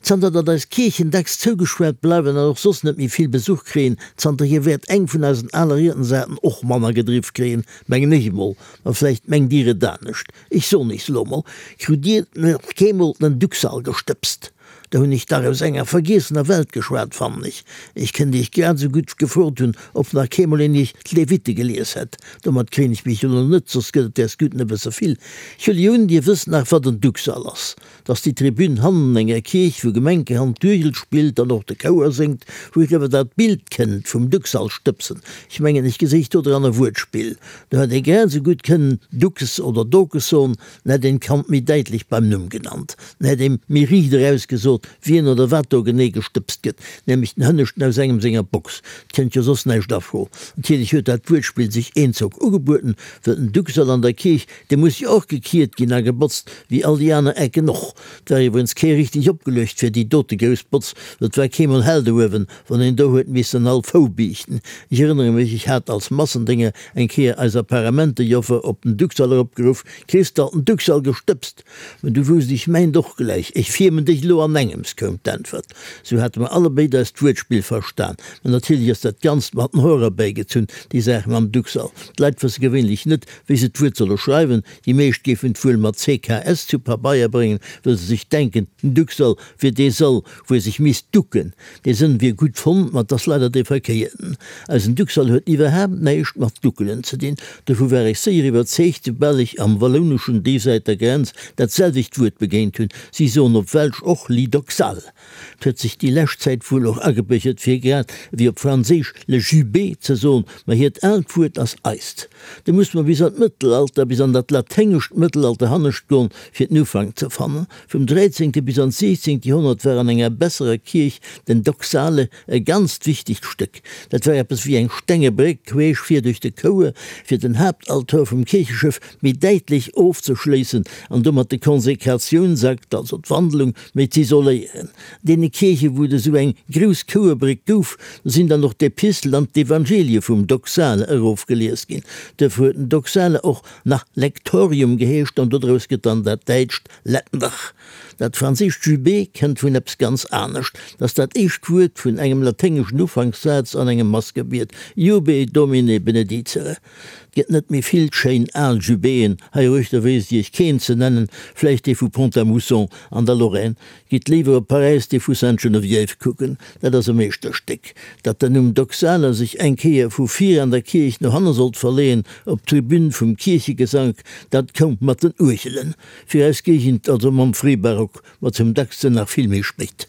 Zanter datt eis Kierchen dacks zougespaart bleiwen an och soss net méi vill Besuch kréien, zanterhier wäert eng vun eisen ale Riedensarten och manner gedriff kréien, mengen ech emol. Ma vläicht mengt Dir et anescht. Ech soen iech elo emol, Krut Dir nach keemol den Duxall gestëbst? Da hunn ech dach aus enger vergiessener Welt geschwat, fannen ech. Ech kënnt iech grad esou gutt gefrot hunn, ob nach keemol een iech d'Levite gelies hätt. Domat kréien ech mech elo net, soss gëtt et däers Gudden e bësse vill. Ech huele jo un, dir wësst nach, wat en Duxall ass. 't ass déi Tribün hannen enger Kierch, wou gemenkehand d'Uergel spillt an och de Chouer séngt, wou dat Bild kënnt vum Duxall stëbsen. Ech mengen, ech geséich do dran e Wuertspill. Do hätt ee grad esou gutt kënnen Dukes oder Dokes soen, En hätt een d'Kand méi däitlech beim Numm genannt, en hätt eem méi riicht eraus gesot, wien oder wat do genee gestëbst gëtt, nämlech den Hënneschten aus engem senger Box. 't kënnt jo soss näischt a Fro. Natierlech huet dat Wuertspill sech eenzock ugebueden, wëll den Duxall an der Kierch, dee muss jo och gekiert ginn a gebotzt, wéi all déi aner Ecken och. 't war iwwerens kee richteg opgeluecht fir déi dote grouss Botz, wëll 't war keemol hell do uewen, wann een do huet missen all Fou biichten. Ech erënnere mech, ech hat als Massendénger eng Kéier eis Apparamentenjoffer op den Duxall eropgeruff, Kriss d'alt den Duxall gestëbst? Mä du wousst, ech mengt och gläich, ech fiermen dech elo anengems, koum d'Äntwert. Sou hate mer allebéid eist Wuertspill verstan. Mä natierlech ass dat Ganzt mat den Hoer erbäigezunn, déi Saach mam Duxall. D'Leit wësse gewéinlech net, wéi se d'Wuert solle schreiwen. Déi meescht géifen et wuel mat CKS zu Pabeier bréngen, wëll se sech denken, den Duxall wier dee Sall, wou ee sech misst ducken. Dee Sënn wier gutt fonnt, ma 't ass leider dee verkéierten. Eisen Duxall huet iwwerhaapt näischt mat Duckelen ze dinn. Dovu war ech séier iwwerzeegt, soubal ech am Wallouneschen déisäit der Grenz dat selwecht Wuert begéint hunn. Si soen op Welsch och Lidoxal. 't huet sech déi lescht Zäit wuel och agebiergert, fir grad ewéi op Franséisch le jubé ze soen, ma hiert aalt Wuert ass eist. Do muss mer bis an d'Mëttelalter, bis an dat laténgescht Mëttelalter hannescht goen, fir den Ufank ze fannen. Vum dräizéngte bis an d'siechzéngt Joerhonnert war an enger besserer Kierch den Doxale e ganzt wichtegt Stéck. Dat war eppes wéi eng stenge Bréck queesch vir duerch de Chouer, fir den Haaptaltor vum Kiercheschëff méi däitlech ofzeschléissen an domat de Konsekratiounsakt, also d'Wandelung, méi z'isoléieren. Deene Kierche wou et esou eng grouss Chouerbréck gouf, do sinn dann och d'Epistel an d'Evangelie vum Doxale erofgelies ginn. Duerfir huet den Doxale och nach Lektorium geheescht an dodraus gëtt dann dat däitscht Lettendach. Dat franséischt jubé kënnt vun eppes ganz anescht, 't ass dat éischt Wuert vun engem laténgeschen Ufankssaz an engem Massgebiet, Jube Domine benedicere. 't gëtt net méi vill schéin al Jubéen hei eruechter, wéisst Iech keen ze nennen, vläicht dee vu Pont-à-Mousson an der Lorraine. Gitt léiwer op Paräis dee vu Sainte-Geneviève kucken, dat ass e Meeschterstéck. Datt den Numm Doxala sech eng Kéier vu vir an der Kierch no hanne sollt verleeën, op d'Tribün vum Kierchegesank, dat koum mat den Uergelen fir eis Géigend, also mam Fréibarock, ma zum dacksten nach vill méi spéit.